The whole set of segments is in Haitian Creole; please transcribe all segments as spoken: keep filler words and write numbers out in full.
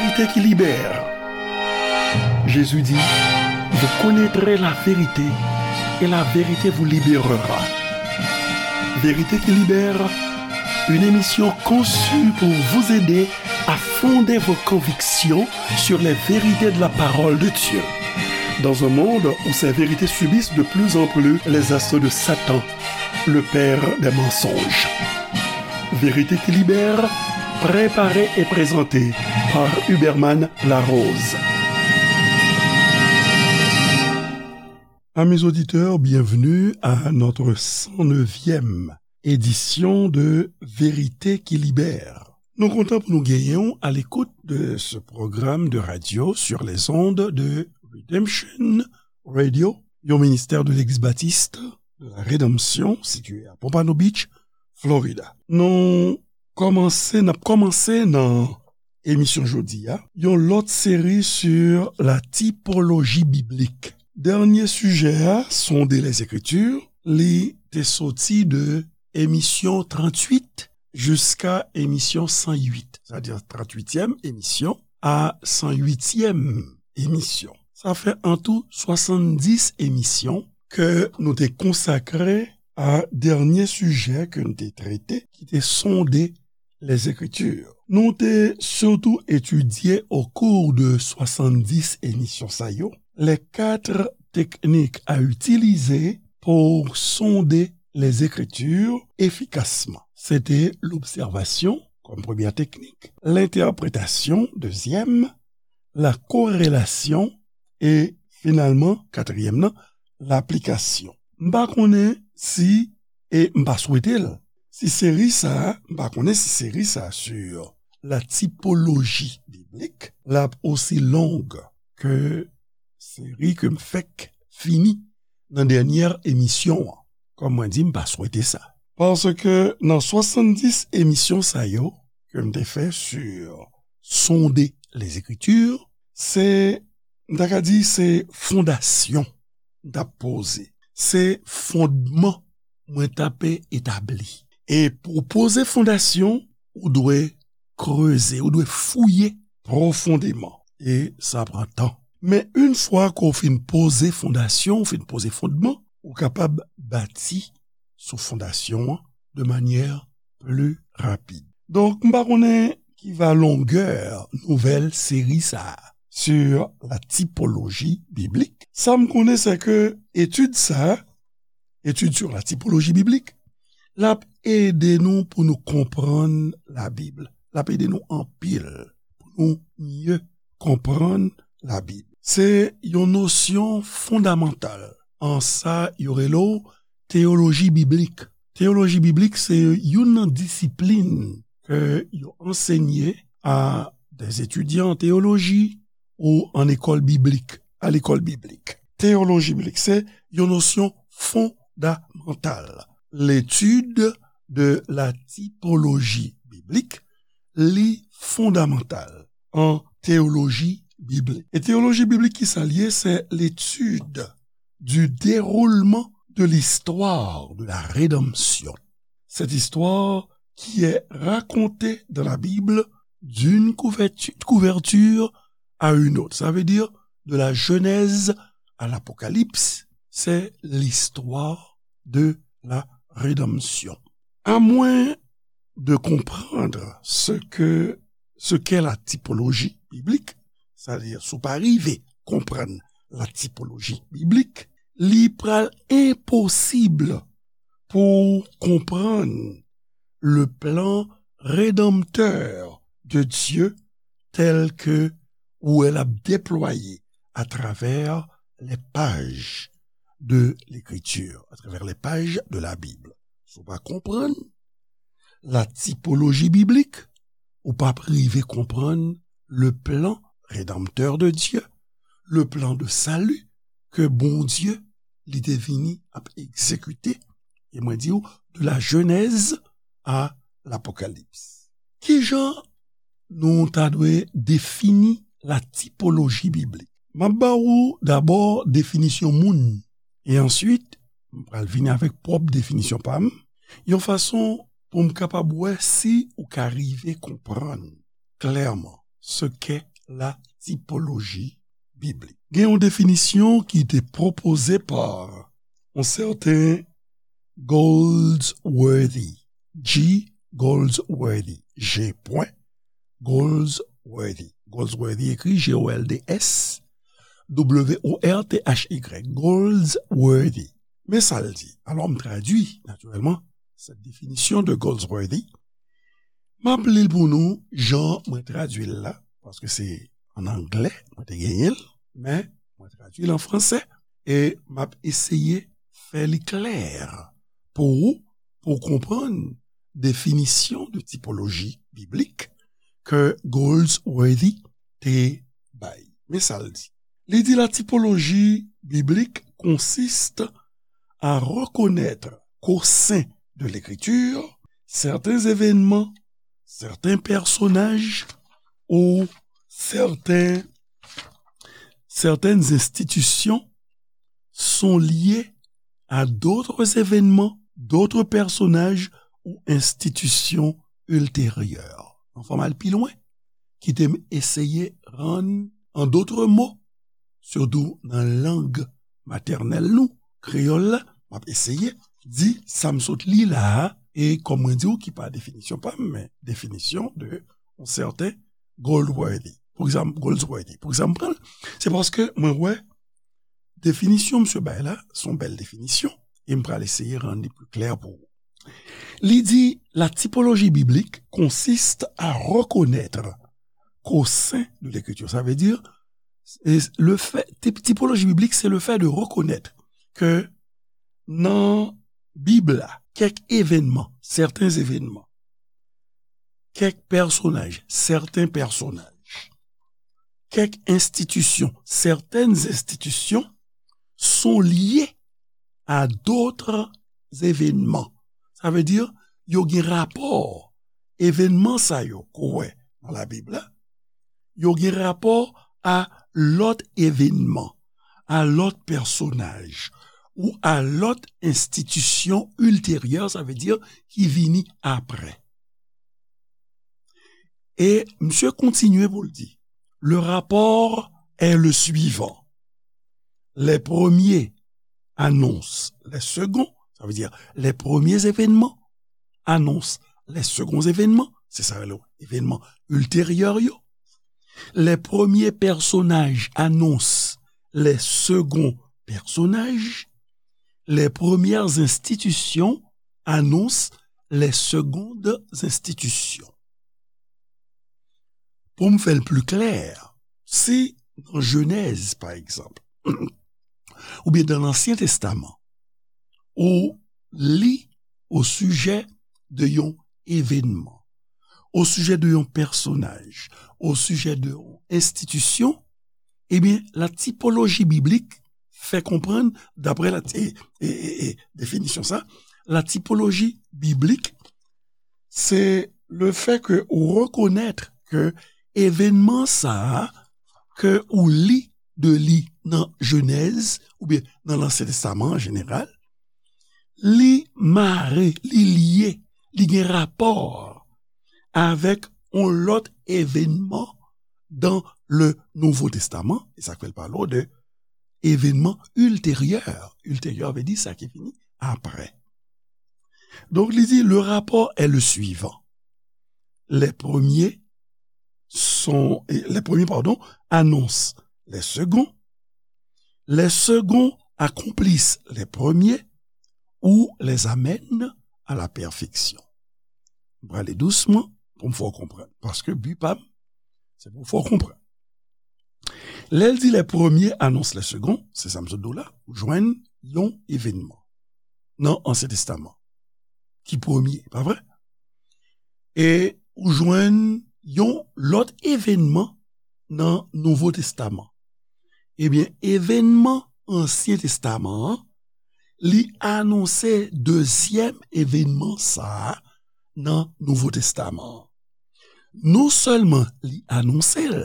Vérité qui libère. Jésus dit, vous connaîtrez la vérité et la vérité vous libérera. Vérité qui libère, une émission conçue pour vous aider à fonder vos convictions sur les vérités de la parole de Dieu. Dans un monde où ces vérités subissent de plus en plus les assauts de Satan, le père des mensonges. Vérité qui libère, préparée et présentée par Huberman Larose. Amis auditeurs, bienvenue à notre cent neuvième édition de Vérité qui libère. Nou kontan pou nou genyen w à l'écoute de ce programme de radio sur les ondes de Redemption Radio, yon ministère de l'Église baptiste de la Rédemption, situé à Pompano Beach, Florida. Nou kòmanse, n ap kòmanse nan emisyon jodi a, yon lòt seri sur la typologie biblique. Dènye sijè a, Sonder les Écritures, li te soti de emisyon tranntuit jiska emisyon san uit, sètadi tranntuityèm emisyon a san uityèm emisyon. Sa fè an tou swasanndis emisyon ke nou te konsakre a dènye sijè ke n te trete, ki te sonde les Écritures. Nou te sitou etidye au cours de swasanndis emisyon sa yo, les quatre techniques à utiliser pour sonder les Écritures efficacement. Se te lobsèvasyon kòm premyè teknik, lentèpretasyon dezyèm, la corrélation, e finalman, katriyèm nan, laplikasyon. M pa konnen si, e m pa swete l, si seri sa a, m pa konnen si seri sa a sur la typologie biblique, l ap osi long ke seri ke m fèk fini nan dènyè emisyon an. Kòm mwen di, m pa swete sa. Paske nan swasanndis emisyon sa yo ke m te fè sur sonder les Écritures, se, m ta ka di, se fondasyon m t ap poze. Se fondman mwen t ap etabli. E pou w poze fondasyon, ou dwe kreze, ou dwe fouye pwofondeman. E sa pran tan. Men yon fwa ke w fin poze fondasyon, w fin poze fondman, ou kapab bati sou fondasyon an de manyè pli rapid. Donk, m pa konnen ki va longè nouvèl seri sa a sur la typologie biblique. Sa m konnen, se ke etid sa a, étude sur la typologie biblique, l ap ede nou pou nou konprann Labib. L ap ede nou anpil pou nou mye konprann Labib. Se yon nosyon fondamantal an sa yo rele w teyoloji biblik. Teyoloji biblik se youn nan disiplin ke yo ansenye a des étudiants en théologie ou an ekòl biblik, a lekòl biblik. Teyoloji biblik se yon nosyon fondamantal. L'étude de la typologie biblique, li fondamantal an teyoloji biblik. E teyoloji biblik, ki sa l ye? C'est l'étude du déroulement de l'histoire de la rédemption. Cette histoire qui est racontée dans la Bible d'une couvertu-, couverture à une autre. Ça veut dire de la Genèse à l'Apocalypse, c'est l'histoire de la rédemption. À moins de comprendre ce que, ce qu'est la typologie biblique, c'est-à-dire si w pa rive konprann la typologie biblique, li pral enposib pou w konprann le plan rédempteur de Dieu tel que ou wè l ap deplwaye à travers les pages de l'Écriture, à travers les pages de la Bible. Si w pa konprann la typologie biblique, ou p ap rive konprann le plan rédempteur de Dieu, le plan de salut ke Bondye li te vini ap egzekite, e mwen di w, de la Genèse à l'Apocalypse. Kijan nou ta dwe defini la typologie biblique? M ap ba ou dabò definisyon moun, e answit, m pral vini avèk pwòp definisyon pa m, yon fason pou m kapab wè si ou ka rive konprann klèman ce qu'est la typologie biblique. Gen yon definisyon ki te pwopoze pa yon sèten Goldsworthy, G. Goldsworthy, G. Goldsworthy. Goldsworthy ekri G O L D S W O R T H Y. Goldsworthy. Men sa l di. Alò, m tradui, natirèlman, cette définition de Goldsworthy. M ap li l pou nou, jan mwen tradui l la, paske se an anglè, mwen te genyen l, men mwen tradui l an fransè, e m ap eseye fè li klè pou ou, pou w konprann definisyon de tipoloji biblik ke Goldsworthy te bay. Men sa l di. Li di, la typologie biblique consiste à reconnaître qu'au sein de l'Écriture, certains événements, certains personnages ou certains, certaines institutions sont liés à d'autres événements, d'autres personnages ou institutions ultérieures. Anfan, m al pi lwen, kite m eseye rann, en d'autres mots, sitou nan lang matènèl nou, kreyòl la, m ap eseye di sa m sot li la a, e kòm mwen di w ki pa definisyon pa m, men definisyon de yon sèten Goldsworthy. Pou egzanp, Goldsworthy. Pou egzanp, pran l, se paske mwen wè definisyon misye bay la, se yon bèl definisyon, e m pral eseye rann li pi klè pou ou. Li di, la typologie biblique consiste à reconnaître qu'au sein de l'Écriture, ça veut dire, et le fait, typ-, typologie biblique, c'est le fait de reconnaître que nan Bib la, kèk evènman, certains événements, kèk pèsonaj, certains personnages, kèk enstitisyon, certaines institutions sont liées à d'autres événements. Sa vle di, yo gen rapò, evènman sa yo ke w wè nan Labib la, yo gen rapò a lòt evènman, a lòt pèsonaj, ou a lòt enstitisyon ilteryè, sa vle di ki vini apre. E misye kontinye pou l di, le rapport est le suivant. Les premiers annoncent les seconds, ça veut dire les premiers événements annoncent les seconds événements, se sa yo rele evènman ilteryè yo. Les premiers personnages annoncent les seconds personnages. Les premières institutions annoncent les secondes institutions. Pou m fè l pi klè, si nan Jenèz, pa egzanp, oubyen nan Ansyen Testaman, ou li o sijè de yon evènman, o sijè de yon pèsonaj, o sijè de yon enstitisyon, ebyen, la typologie biblique fè konprann, daprè la, e, e, e, e, definisyon sa, la typologie biblique, c'est le fait que ou reconnaître que evènman sa a, ke ou li de li nan Jenèz, oubyen nan Lansyen Testaman an jeneral, li mare, li lye, li gen rapò avèk yon lòt evènman dans le Nouveau Testament, e sa k fè l pale w de evènman ilteryè. Ilteryè vle di sa ki vini apre. Donk, li di, le rapport est le suivant. Les premiers sont, les premiers, pardon, annoncent les seconds. Les seconds accomplissent les premiers ou les amènent à la perfection. M prale dousman pou m fè w konprann. Paske bi pa m, se pou fè w konprann. Lè l di les premiers annoncent les seconds, se sa m sot di w la, ou jwenn yon evènman nan Ansyen Testaman ki premye, pa vre? E ou jwenn yon lòt evènman nan Nouvo Testaman. Ebyen, evènman Ansyen Testaman an, li anonse dezyèm evènman sa a nan Nouvo Testaman an. Non sèlman li anonse l,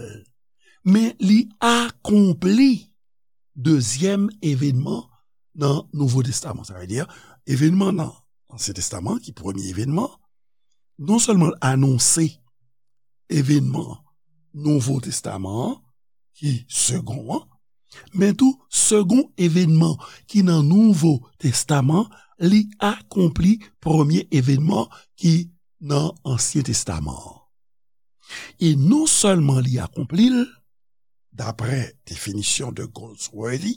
men li akonpli dezyèm evènman nan Nouvo Testaman. Sa vle di, evènman nan Ansyen Testaman, ki premye evènman, non sèlman l anonse evènman Nouvo Testaman an, ki segon an, men tou segon evènman ki nan Nouvo Testaman, li akonpli premye evènman ki nan Ansyen Testaman an. E non sèlman li akonpli l, daprè definisyon de Goldsworthy,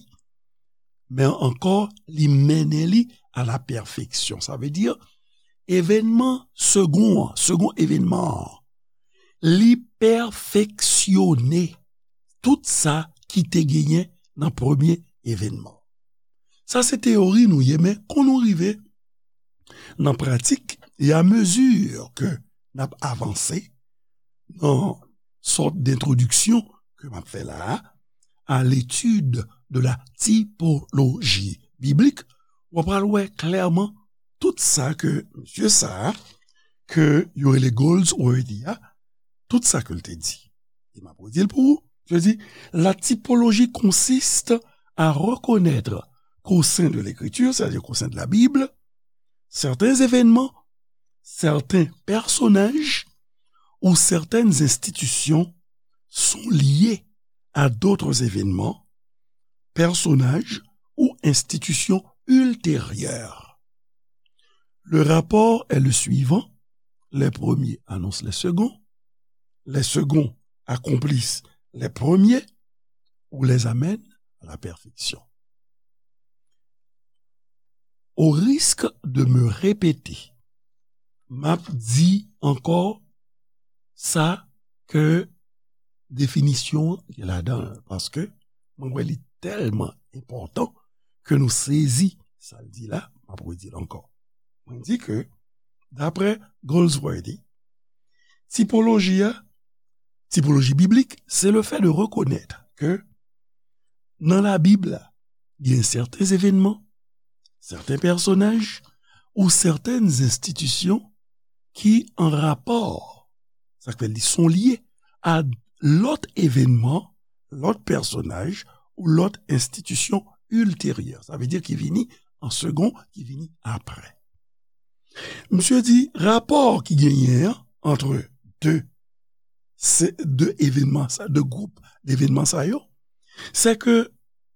men ankò li mennen li a la pèfeksyon. Sa vle di, evènman segon an, segon evènman an, li pèfeksyone tout sa ki te genyen nan premye evènman. Sa se teyori nou ye, men kon nou rive nan pratik, e a mezi ke n ap avanse nan sòt dentwodiksyon ke m ap fè la a, à l'étude de la typologie biblique, w ap pral wè klèman tout sa ke mesye sa a, ke yo rele Goldsworthy a, tout sa ke l te di. E m ap redi l pou ou. Je dis, la typologie consiste à reconnaître qu'au sein de l'Écriture, c'est-à-dire qu'au sein de la Bible, certains événements, certains personnages ou certaines institutions sont liés à d'autres événements, personnages ou institutions ultérieures. Le rapport est le suivant. Les premiers annoncent les seconds. Les seconds accomplissent les premiers ou les amènent à la perfection. Au risque de me répéter, m ap di ankò sa ke definisyon an gen ladan l, paske mwen wè li tèlman enpòtan ke nou sezi sa l di la, m ap redi l ankò. Mwen di ke, daprè Goldsworthy, tipoloji a, tipoloji biblik, se le fè de rekonèt ke nan Labib la, gen sèten evènman, sèten pèsonaj ou sèten enstitisyon ki an rapò, sa k fè li se yon lye, a lòt evènman, lòt pèsonaj ou lòt enstitisyon ilteryè. Sa vle di ki vini an segon, ki vini apre. Misye di rapò ki genyen an antre de, se, de evènman sa, de gwoup devènman sa yo, se ke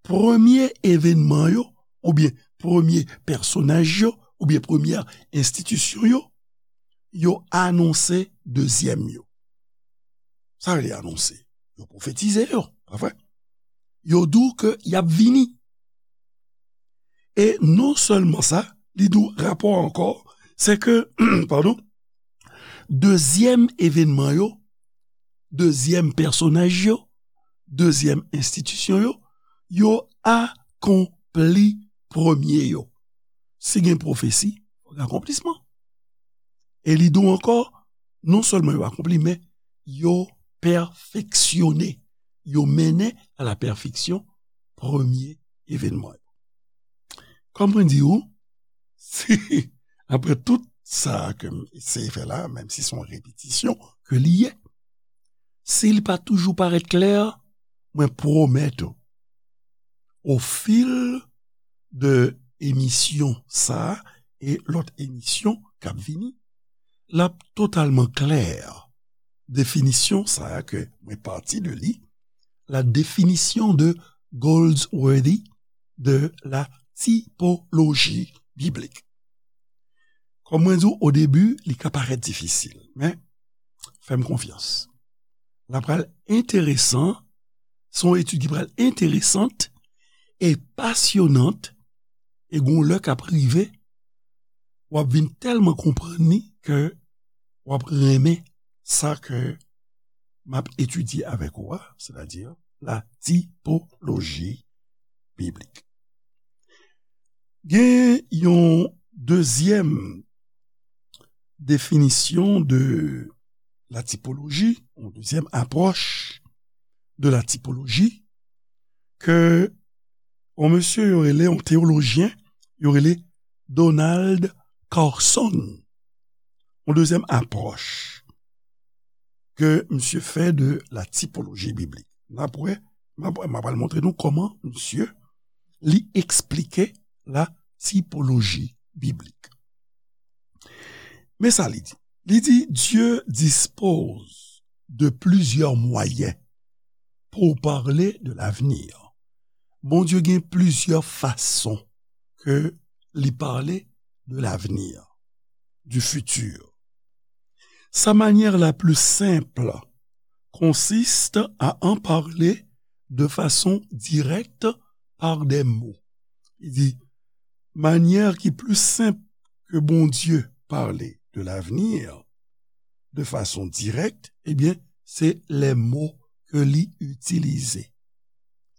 premye evènman yo, oubyen premye pèsonaj yo, oubyen premye enstitisyon yo, yo anonse dezyèm yo. Sa vle anonse? Yo pwofetize yo, pa vre? Yo di w ke y ap vini. E non sèlman sa, li di w rapò ankò, se ke, padon, dezyèm evènman yo, dezyèm pèsonaj yo, dezyèm enstitisyon yo, yo akonpli premye yo. Si gen pwofesi, fò gen akonplisman. E li di w ankò, non sèlman yo akonpli, men yo pèfeksyone, yo mennen a la pèfeksyon premye evènman yo. Kòm mwen di w, si, apre tout sa ke m eseye fè la, menm si se yon repetisyon ke li ye, si l pa toujou parèt klè, mwen pwomèt ou, au fil de emisyon sa a e lòt emisyon k ap vini, l ap totalman klè. Definisyon sa a ke mwen pati de li, la définition de Goldsworthy de la typologie biblique. Kòm mwen di w o debi, li ka parèt difisil, men fè m konfyans. L ap pral enteresan, se yon etid ki pral enteresant e pasyonant, e gon lè k ap rive, w ap vin tèlman konprann li ke w ap renmen sa ke m ap etidye avèk ou a, sètadi la tipoloji biblik. Gen yon dezyèm definisyon de la tipoloji, yon dezyèm apwòch de la tipoloji, ke yon mesye yo rele, yon teyolojyen, yo rele Donald Carson. Yon dezyèm apwòch ke misye fè de la tipoloji biblik. N ap wè, m ap, m ap al montre nou kòman misye li eksplike la tipoloji biblik. Men sa li di. Li di, Dieu dispose de plusieurs moyens pour parler de l'avenir. Bondye gen plizyè fason ke li pale de l'avenir, du futur. Sa manière la plus simple consiste à en parler de façon directe par des mots. Li di, manyè ki pli senp ke Bondye pale de l'avenir de façon directe, ebyen, se les mots ke li itilize.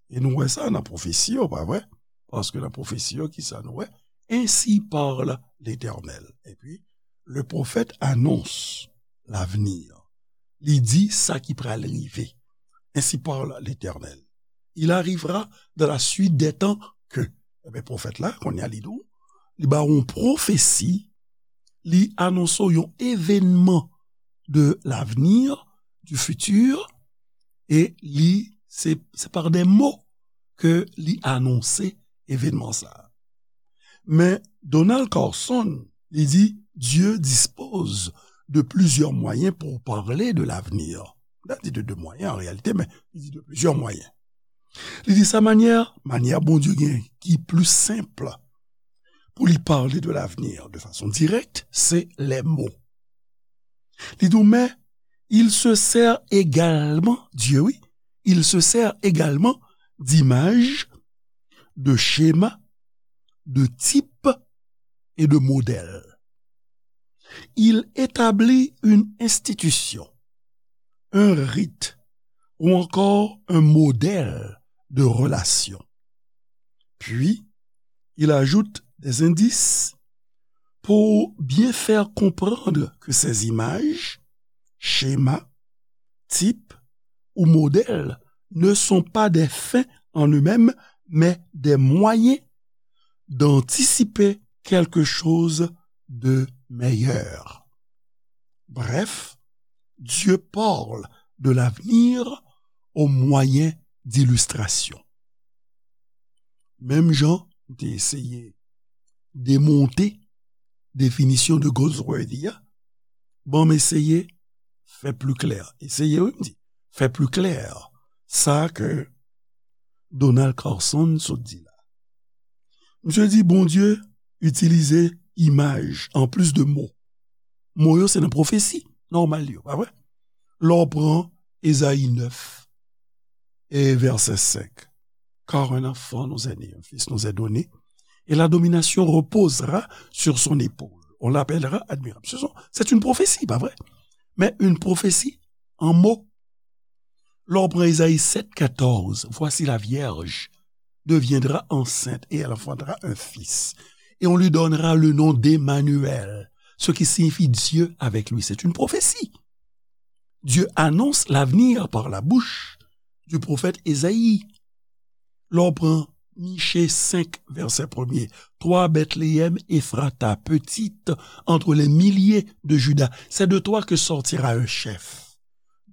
E nou wè sa nan pwofesi yo, pa vre? Paske nan pwofesi yo, ki sa nou wè? Ainsi parle l'Éternel. Epi, le prophète annonce l'avenir. Li di sa ki pral rive. Ainsi parle l'Éternel. Il arrivera dans la suite des temps que. Ebyen, pwofèt la, kounye a li di w, li ba w yon pwofesi, li anonse w yon evènman de l'avenir, du futur, e li, se, se par des mots ke li anonse evènman sa a. Men Donald Carson, li di, Dieu dispose de plusieurs moyens pour parler de l'avenir. Li di de deux moyens en réalité, men li di de plusieurs moyens. Li di sa manyè, manyè Bondye gen ki pli senp pou li pale de l'avenir de façon directe, se les mots. Li di, mais il se sert également, Dieu, oui, il se sert également d'images, de schémas, de types et de modèles. Il établit une institution, un rite ou encore un modèle de relation. Puis, il ajoute des indices pour bien faire comprendre que ces images, schémas, types ou modèles ne sont pas des fins en eux-mêmes, mais des moyens d'anticiper quelque chose de meilleur. Bref, Dieu parle de l'avenir au moyen d'illustrations. Menm jan m te eseye demonte definisyon de Goldsworthy a, ban m eseye fè pli klè. Eseye, wi, m di, fè pli klè sa ke Donald Carson sot di la. Misye di Bondye itilize imaj anplis de mo. Mo yo se nan pwofesi nòmal yo, pa vre? Lè w pran Ezayi nèf e vèsè senk, car un enfant nous est né, un fils nous est donné, et la domination reposera sur son épaule. On l'appellera admirable. Ce sont, c'est une prophétie, pas vrai? Mais une prophétie en mots. Lè w pran Ezayi sèt katòz, voici la vierge deviendra enceinte et elle enfantera un fils. Et on lui donnera le nom d'Emmanuel, ce qui signifie Dieu avec lui. C'est une prophétie. Dieu annonce l'avenir par la bouche du prophète Ésaïe. Lè w pran Miche senk, vèsè premye, toi, Bethléem Ephrata, petite entre les milliers de Juda, c'est de toi que sortira un chef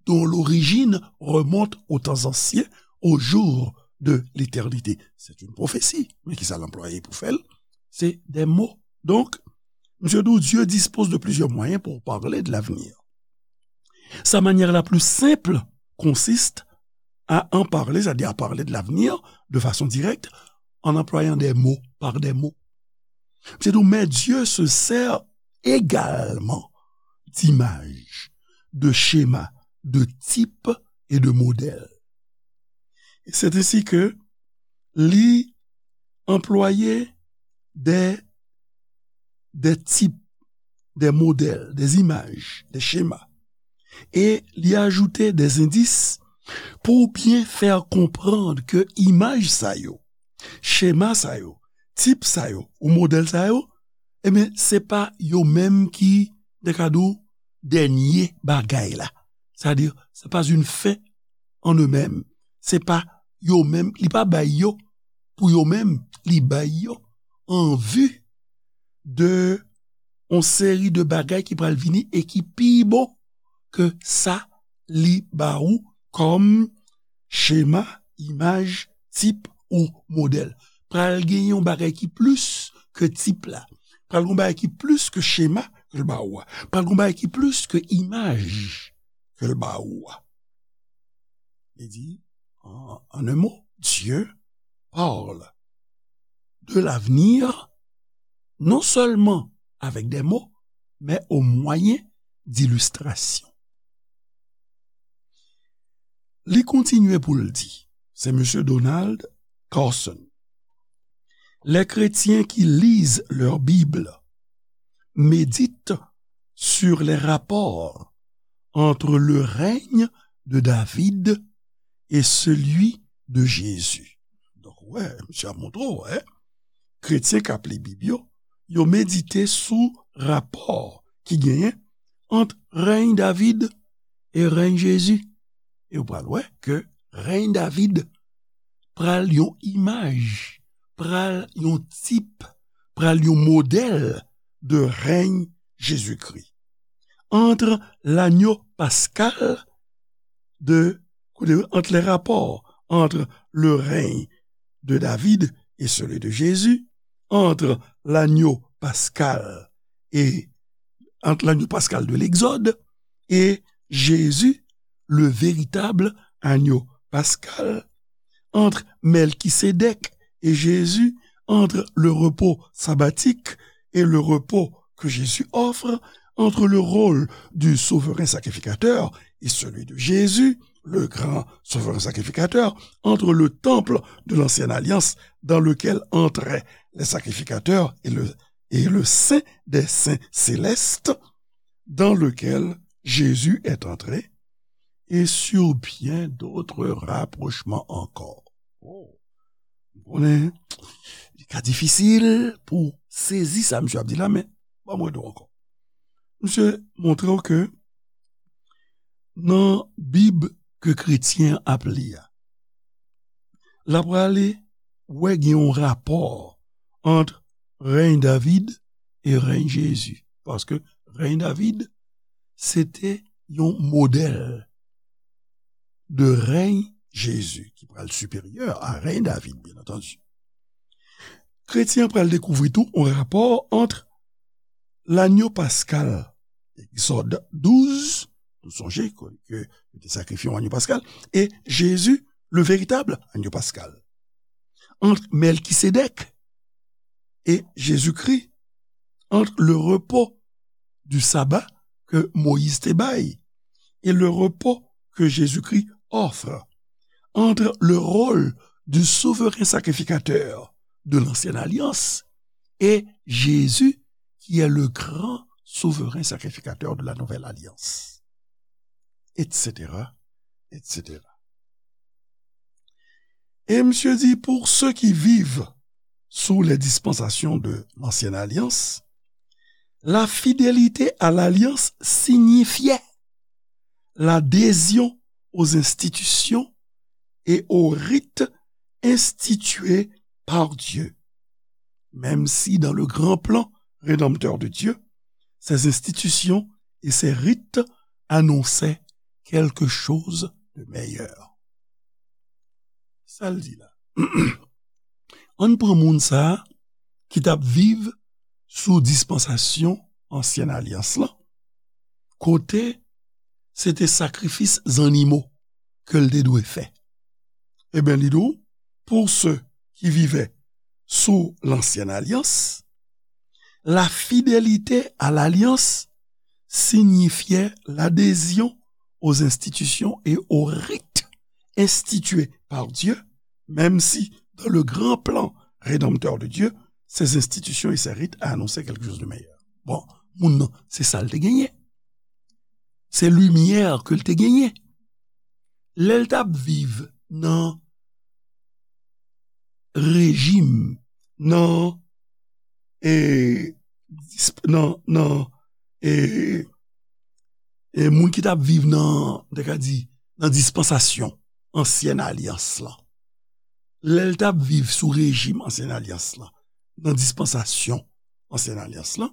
dont l'origine remonte aux temps anciens, aux jours de l'éternité. C'est une prophétie. Men kisa l anplwaye pou fè l? Se des mots. Donk, Dieu, Dieu dispose de plusieurs moyens pour parler de l'avenir. Sa manière la plus simple consiste à en parler, c'est-à-dire à parler de l'avenir de façon directe, en employant des mots, par des mots. C'est donc, mais Dieu se sert également d'images, de schémas, de types et de modèles. Et c'est ainsi que li anplwaye des, des types, des modèles, des images, des schémas. E li ajoute des indices pour bien faire comprendre que imaj sa yo, chema sa yo, tip sa yo, ou modèl sa yo, ebyen, se pa yo menm ki, de ka di w, dènye bagay la. Sa di, se pa une fin en eux-mêmes. Se pa yo menm, li pa bay yo pou yo menm, li bay yo an vi de yon seri de bagay ki pral vini e ki pi bon ke sa li ba ou kòm chema, imaj, tip ou modèl. Pral gen yon bagay ki plis ke tip la. Pral gen yon bagay ki plis ke chema ke l ba ou a. Pral gen yon bagay ki plis ke imaj ke l ba ou a. Li di, en, en un mot, Dieu parle de l'avenir, non seulement avec des mots, mais au moyen d'illustrations. Li kontinye pou l di, se mesye Donald Carson, les chrétiens qui lisent leur Bible méditent sur les rapports entre le règne de David et celui de Jésus. Donk, wè, misye ap montre w, wè, kretyen k ap li Bib yo, yo medite sou rapò ki genyen ant rèy David e rèy Jezi. E w pral wè ke rèy David pral yon imaj, pral yon tip, pral yon modèl de rèy Jezikri. Entre l'agneau pascal de, entre les rapports entre le règne de David et celui de Jésus, entre l'agneau pascal et entre l'agneau pascal de l'Exode et Jésus, le véritable agneau pascal, entre Melchisédek et Jésus, entre le repos sabbatique et le repos que Jésus offre, entre le rôle du souverain sacrificateur et celui de Jésus, le grand souverain sacrificateur, entre le temple de l'ancienne alliance dans lequel entraient les sacrificateurs et le, et le saint des saints célestes dans lequel Jésus est entré, et sur bien d'autres rapprochements encore. Oh. Ou konnen, li ka difisil pou sezi sa misye ap di la, men ban m rele w ankò. Misye montre w ke nan Bib ke kretyen ap li a, l ap prale wè gen yon rapò ant rèy David e rèy Jezi. Paske rèy David, se te yon modèl de rèy Jezi, ki pral siperyè a rèy David, byen antandi. Kretyen an pral dekouvri tou yon rapò ant lanyo paskal, Egzòd douz, nou sonje ke, ke yo te sakrifye yon anyo paskal, e Jezi, le véritable agneau pascal. Entre Melchisédek et Jésus-Christ, entre le repos du sabbat que Moïse te bay et le repos que Jésus-Christ offre, entre le rôle du souverain sacrificateur de l'ancienne alliance et Jésus qui est le grand souverain sacrificateur de la nouvelle alliance, et cetera, et cetera. Et monsieur dit, pour ceux qui vivent sous les dispensations de l'ancienne alliance, la fidélité à l'alliance signifiait l'adhésion aux institutions et aux rites institués par Dieu, même si dans le grand plan rédempteur de Dieu, ces institutions et ces rites annonçaient quelque chose de meilleur. Sa l di la. Ann pran moun sa a ki t ap viv sou dispansasyon ansyen alyans lan, kote se te sakrifis zannimo ke l te dwe fè. Ebyen, li di w, pour ceux qui vivaient sous l'ancienne alliance, la fidélité à l'alliance signifiait l'adhésion aux institutions et aux rites institués par Dieu, même si dans le grand plan rédempteur de Dieu, ces institutions et ces rites annonçaient quelque chose de meilleur. Bon, moun nan, se sa l te genyen. Se limyè ke l te genyen. Lè l t ap viv nan rejim, nan, e, disp-, nan, nan, e, e moun ki t ap viv nan, m te ka di, nan dispansasyon ansyen alyans lan. Lè l t ap viv sou rejim ansyen alyans lan, nan dispansasyon ansyen alyans lan,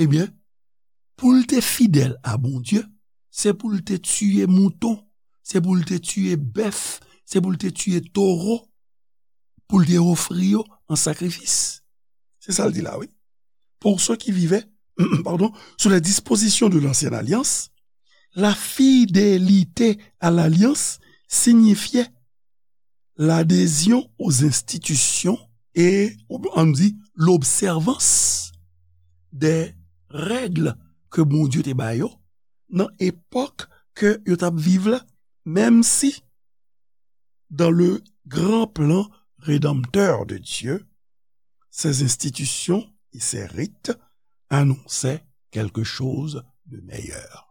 ebyen, pou l te fidèl a Bondye, se pou l te tiye mouton, se pou l te tiye bèf, se pou l te tiye towo, pou l te ofri yo an sakrifis. Se sa l di la, wi. Pour ceux qui vivaient, pardon, sous les dispositions de l'ancienne alliance, La fidélité à l'alliance signifiait l'adhésion aux institutions et, ann di, l'observance des règles ke Bondye te ba yo nan epòk ke yo t ap viv la, menm si dans le grand plan rédempteur de Dieu, ces institutions et ces rites annonçaient quelque chose de meilleur.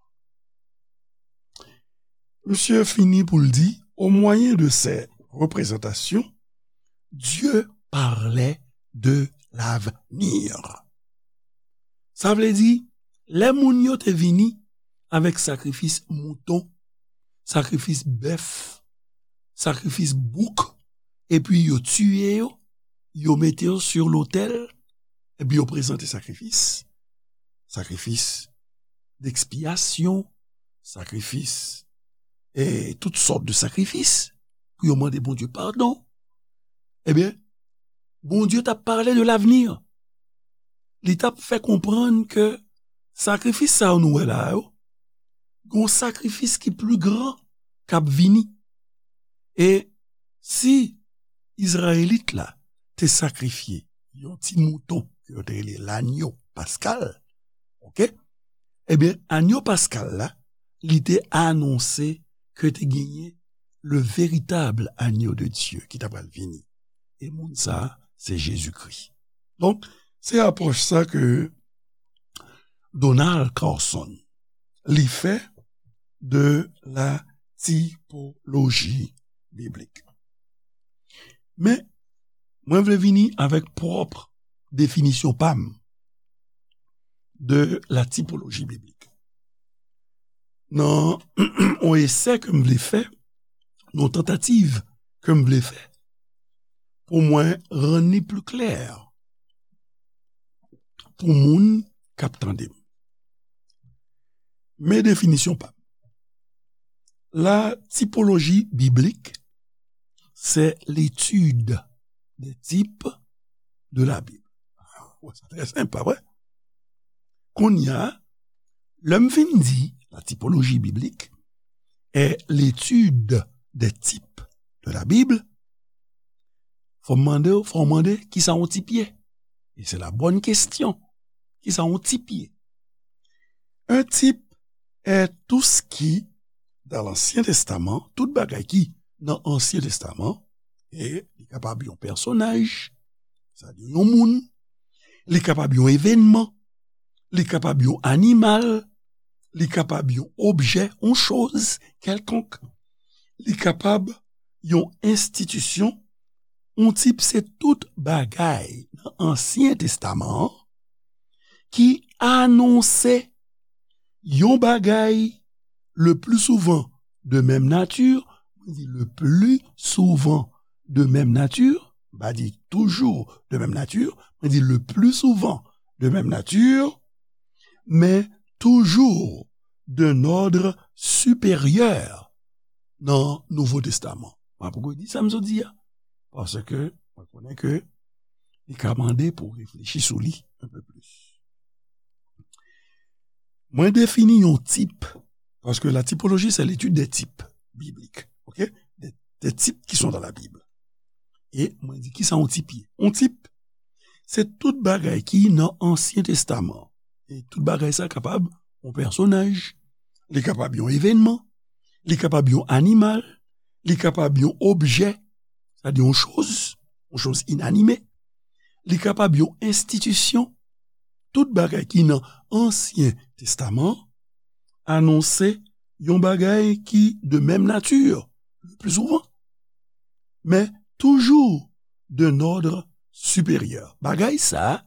Misye fini pou l di, au moyen de ces représentations, Dieu parlait de l'avenir. Sa vle di, lè moun yo te vini avèk sakrifis mouton, sakrifis bèf, sakrifis bouk, epi yo tiye yo, yo mete yo sou lotèl, epi yo prezante sakrifis, sakrifis dekspiyasyon, sakrifis, e tout sòt de sakrifis, pou yo mande Bondye padon. Ebyen, Bondye t ap pale de lavni. Li t ap fè konprann ke sakrifis sa yo nou wè la yo, gon sakrifis ki pli gran k ap vini. E si Izrayelit la te sakrifye yon ti mouton ke yo te rele lanyo paskal, oke? Ebyen, anyo paskal la, li te anonse ke te genyen le véritable agneau de Dieu ki ta pral vini. E moun sa a, se Jezikri. Donk, se apwòch sa ke Donald Carson, li fè de la tipoloji biblik. Men, mwen vle vini avèk pwòp definisyon pa m de la tipoloji biblik. Nan yon esè ke m vle fè, yon tantativ ke m vle fè, pou mwen rann li pli klè pou moun k ap tande m. Men definisyon pa m. La typologie biblique, c'est l'étude des types de la Bible. Wè, sa trè senp, pa vre? Kounye a, lè m fin di la typologie biblique est l'étude des types de la Bible, fò m mande w, fò w mande, kisa yon tip ye? E se la bonne question. Kisa yon tip ye? Un type est tout ce qui, dans l'Ancien Testament, tout bagay ki nan Ansyen Testaman, e li kapab yon pèsonaj, sa di yon moun, li kapab yon evènman, li kapab yon animal, li kapab yon objè, yon choz kèlkonk, li kapab yon enstitisyon, yon tip se tout bagay nan Ansyen Testaman an ki anonse yon bagay le plus souvent de même nature, mwen di le plus souvent de même nature, m pa di toujours de même nature, mwen di le plus souvent de même nature, men toujours d'un ordre supérieur nan Nouvo Testaman. Mwen poko di sa m sot di a, paske mwen konnen ke li ka mande pou w reflechi sou li un peu plus. Mwen defini yon tip, paske la typologie, c'est l'étude des types bibliques, ok? Des, des types qui sont dans la Bible. E mwen di, kisa yon tip ye? Yon tip, se tout bagay ki nan Ansyen Testaman. E tout bagay sa kapab yon pèsonaj, li kapab yon evènman, li kapab yon animal, li kapab yon objè, sa di yon choz, yon choz inanime, li kapab yon enstitisyon, tout bagay ki nan Ansyen Testaman anonse yon bagay ki de menm nati, le pli souvan, men toujou d'un ordre supérieur. Bagay sa,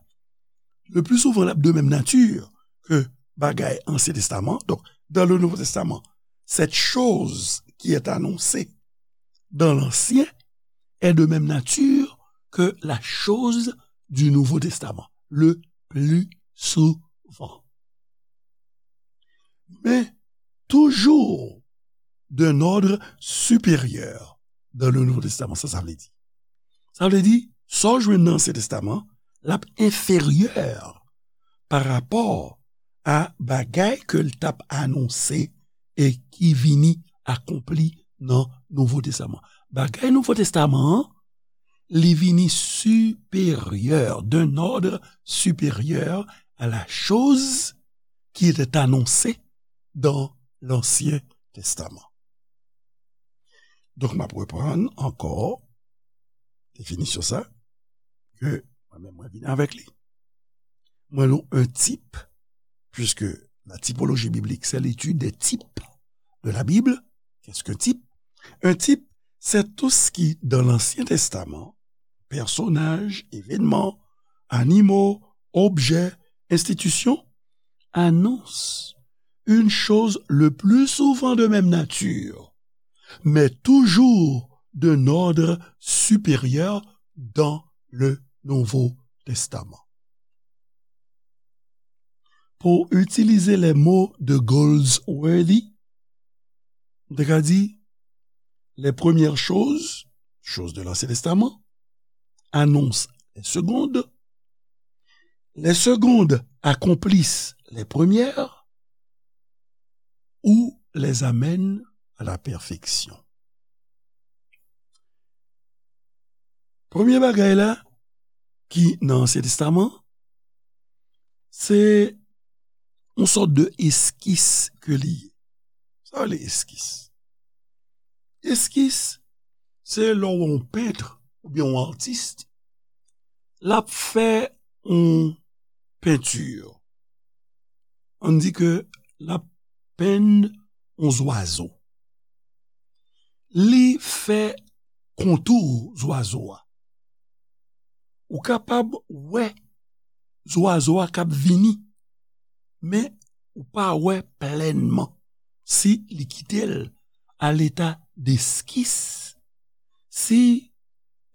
le pli souvan, l ap de menm nati ke bagay Ansyen Testaman. Donc, dans le Nouveau Testament, cette chose qui est annoncée dans l'Ancien est de même nature que la chose du Nouveau Testament, le plus souvent. Men, toujou d'un ordre supérieur dans le Nouveau Testament. Sa, sa vle di? Sa vle di, sa w jwenn nan Ansyen Testaman, l ap enferyè pa rapò a bagay ke l t ap anonse e ki vini akonpli nan Nouvo Testaman. Bagay Nouvo Testaman an, li vini siperyè, d'un ordre supérieur à la chose qui était annoncée dans l'Ancien Testament. Donk, m ap reprann ankò definisyon sa, ke mwen menm mwen vin avèk li. Mwen nou un type, puisque la typologie biblique, c'est l'étude des types de la Bible. Qu'est-ce qu'un type? Un type, c'est tout ce qui, dans l'Ancien Testament, personnages, événements, animaux, objets, institutions, annonce une chose le plus souvent de même nature, mais toujours d'un ordre supérieur dans le Nouveau Testament. Pou itilize les mots de Goldsworthy, m te ka di, les premières choses, choses de l'Ancien Testament, annoncent les secondes, les secondes accomplissent les premières, ou les amènent à la perfection. Premye bagay la ki nan Ansyen Testaman, se yon sòt de eskis ke li ye. Sa rele eskis. Eskis, se lè w wè yon pent oubyen yon atis, l ap fè yon penti. Ann di ke l ap penn yon zwazo. Li fè kontou zwazo a. Ou kapab wè zwazo a k ap vini, men ou pa wè plènman si li kite l a leta deskis, si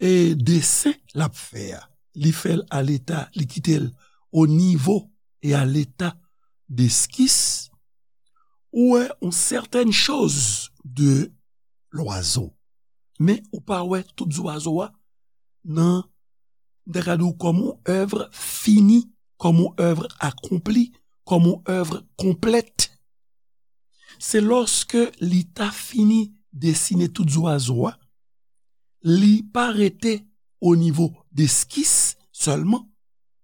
e desen l ap fè a, li fè l a leta, li kite l o nivo e a leta deskis, ou wè yon sètèn choz de lwazo. Men ou pa wè tout zwazo a nan, m ta ka di w, kòm yon èv fini, kòm yon èv akonpli, kòm yon èv konplèt. Se lòske li ta fini desine tout zwazo a, li pa rete o nivo deskis sèlman,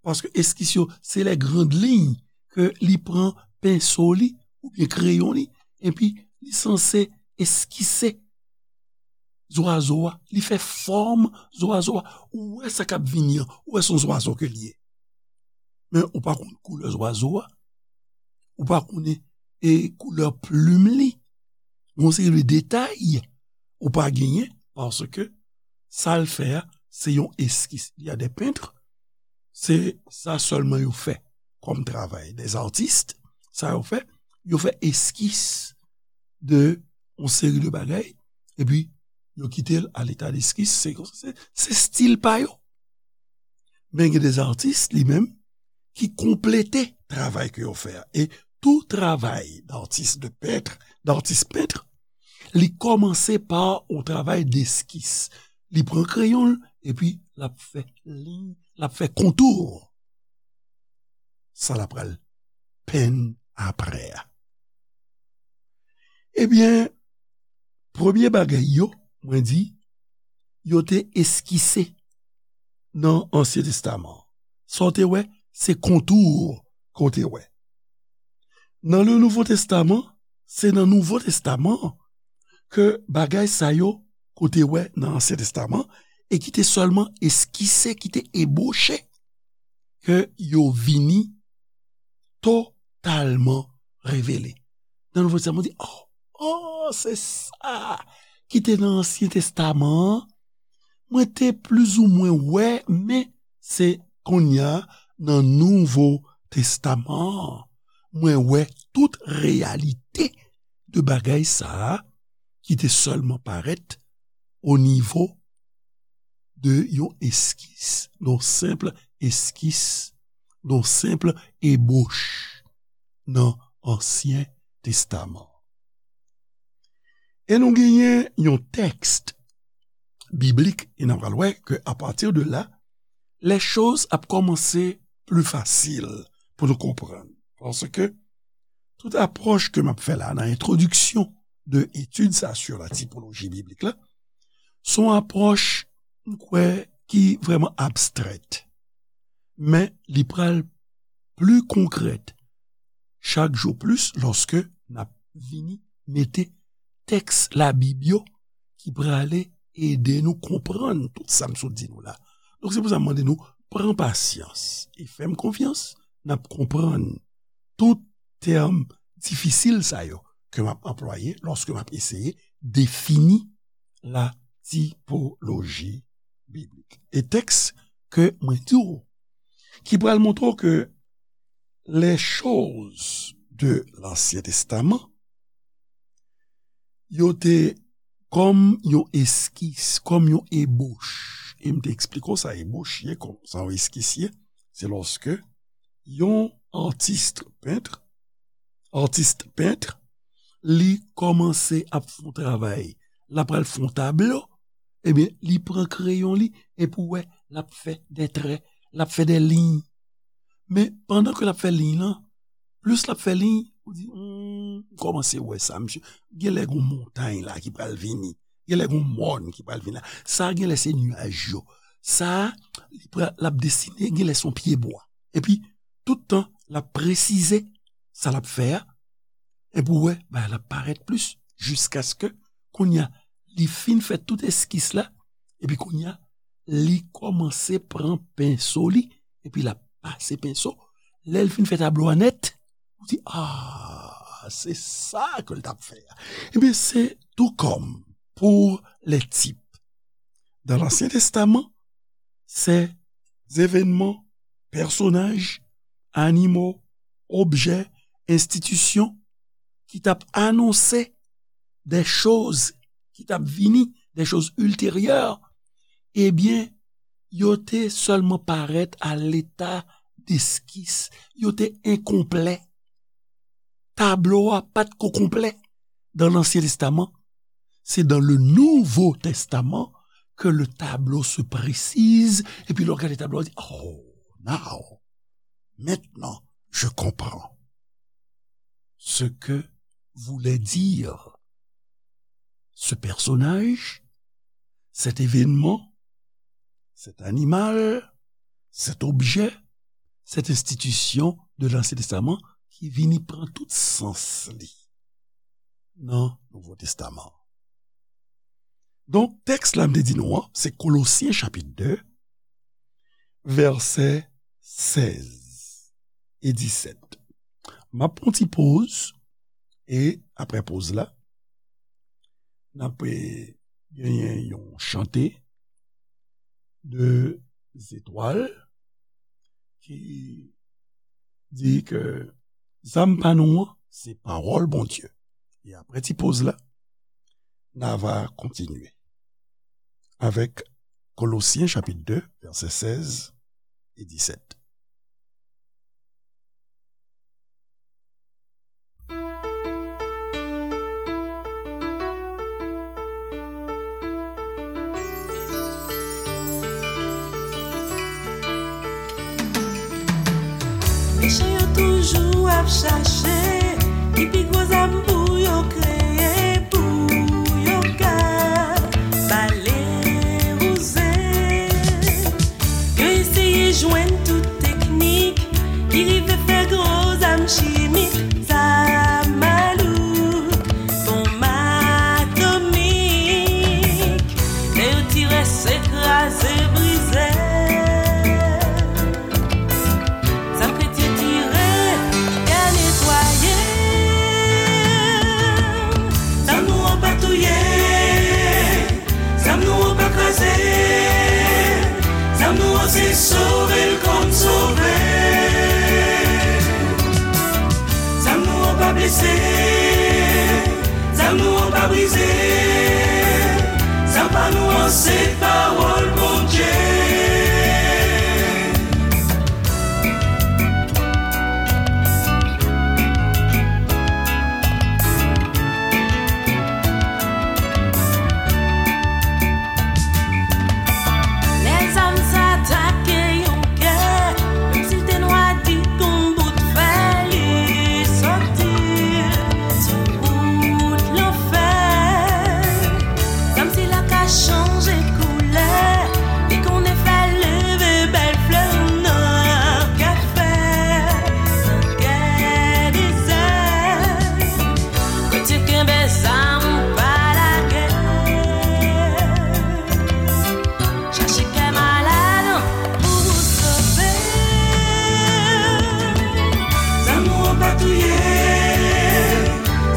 paske eskis yo, se les grandes lignes ke li pran penso li oubyen kreyon li, epi li sanse eskise zwazo a, li fè fòm zwazo a. Ou wè sa k ap vini an, ou wè se yon zwazo ke li ye. Men ou pa konn koulè zwazo a, ou pa konnen e koulè plim li, yon seri de detay ou pa genyen, paske sa l fè a, se yon eskis. Il y a des peintres, se sa sèlman yo fè kòm travay. Des artistes, sa yo fè, yo fè eskis de yon seri de bagay, epi yo kite l a leta deskis, se, se, se stil pa yo. Men gen des artistes, li menm, ki konplete travay ke yo fè a. E tou travay d'atis, de pent, d'atis pent, li kòmanse pa yon travay deskis. Li pran kreyon l, epi l ap fè liy, l ap fè kontou. Sa l ap pral penn apre a. Ebyen, premye bagay yo, mwen di, yo te eskise nan Ansyen Testaman. Sa w te wè, se kontou ke w te wè. Nan le Nouvo Testaman, se nan Nouvo Testaman ke bagay sa yo ke w te wè nan Ansyen Testaman e ki te sèlman eskise, ki te eboche, ke yo vini totalman revele. Nan Nouvo Testaman, w di, oh, oh, se sa ki te nan Ansyen Testaman an. Mwen te plizoumwen wè, men se kounye a nan Nouvo Testaman an, mwen wè tout reyalite de bagay sa a ki te sèlman parèt o nivo de yon eskis, yon senp eskis, yon senp eboch nan Ansyen Testaman. E nou genyen yon tèks biblik, e n a pral wè ke apati de la, les choses ap kòmanse pli fasil pou nou konprann. Paske tout apwòch ke m ap fè la nan entwodiksyon de etid sa sur la typologie biblique la, se yon apwòch, m kwè, ki vrèman abstrèt. Men li pral pli konkrèt chak jou plis lòske n ap vini mete tèks Labib yo ki prale ede nou konprann tout sa m sot di nou la. Donk, se pou sa m mande nou pran pasyans e fè m konfyans, n ap konprann tout tèm difisil sa yo ke m ap anplwaye lòske m ap eseye defini la typologie biblique. E tèks ke mwen di w, ki pral montre w ke les choses de l'Ancien Testament, yo te kòm yon eskis, kòm yon ebòch. E m te eksplike w sa ebòch ye, kòm sa yon eskis ye. Se lòske yon atis pent, atis pent, li kòmanse ap fè yon travay. L ap pral fè yon tablo, ebyen, li pran kreyon li, epi w wè, l ap fè de trè, l ap fè de liy. Men, pandan ke l ap fè liy lan, plis l ap fè liy, ou di, hmm, m kòmanse wè sa, misye. Genlè gon montay la ki pral vini. Genlè gon mòn ki pral vini la. Sa genlè se nyaj yo. Sa, li pral, l ap desine, genlè se yon pyebwa. Epi, tout tan, l ap presize sa l ap fè a. Epi w wè, bagay la parèt plis, jiskaske, kounye a, li fin fè tout eskis la, epi kounye a, li kòmanse pran penso li, epi l ap pase penso. Lè l fin fè tablo a nèt, ou di, ah, se sa ke l t ap fè a. Ebyen, se tou kòm pour les types. Dans l'Ancien Testament, ces événements, personnages, animaux, objets, institutions ki t ap anonse de choz ki t ap vini, de choz ilteryè, ebyen, yo te sèlman parèt a leta deskis, yo te enkonplè. Tablo a pa t ko konplè dans l'Ancien Testament. C'est dans le Nouveau Testament que le tableau se précise. Epi lè w gade tablo a, w di, oh, now, maintenant, je comprends ce que voulait dire ce personnage, cet événement, cet animal, cet objet, cette institution de l'Ancien Testament ki vini pran tout sans li nan Nouvo Testaman. Donk, tèks la m te di nou an, se Kolosyen chapit de, vèsè sèz e disèt. M ap pran ti poz, e apre poz la, n ap, eh, genyen yon chante de zetwal ki di ke zam pa nou an, se pawòl Bondye. E apre ti poz la, n a va kontinye avèk Kolosyen chapit de, vèsè sèz e disèt. Mechan yo toujou ap chache ki pi gwo zam pou yo kreye, pou yo ka bale wouze. Yo eseye jwenn tout teknik ki rive fè gwo zam chimik, zam malouk, bonm atomik. Lè yo tire, se kraze, brize. Zam kretyen tire, gade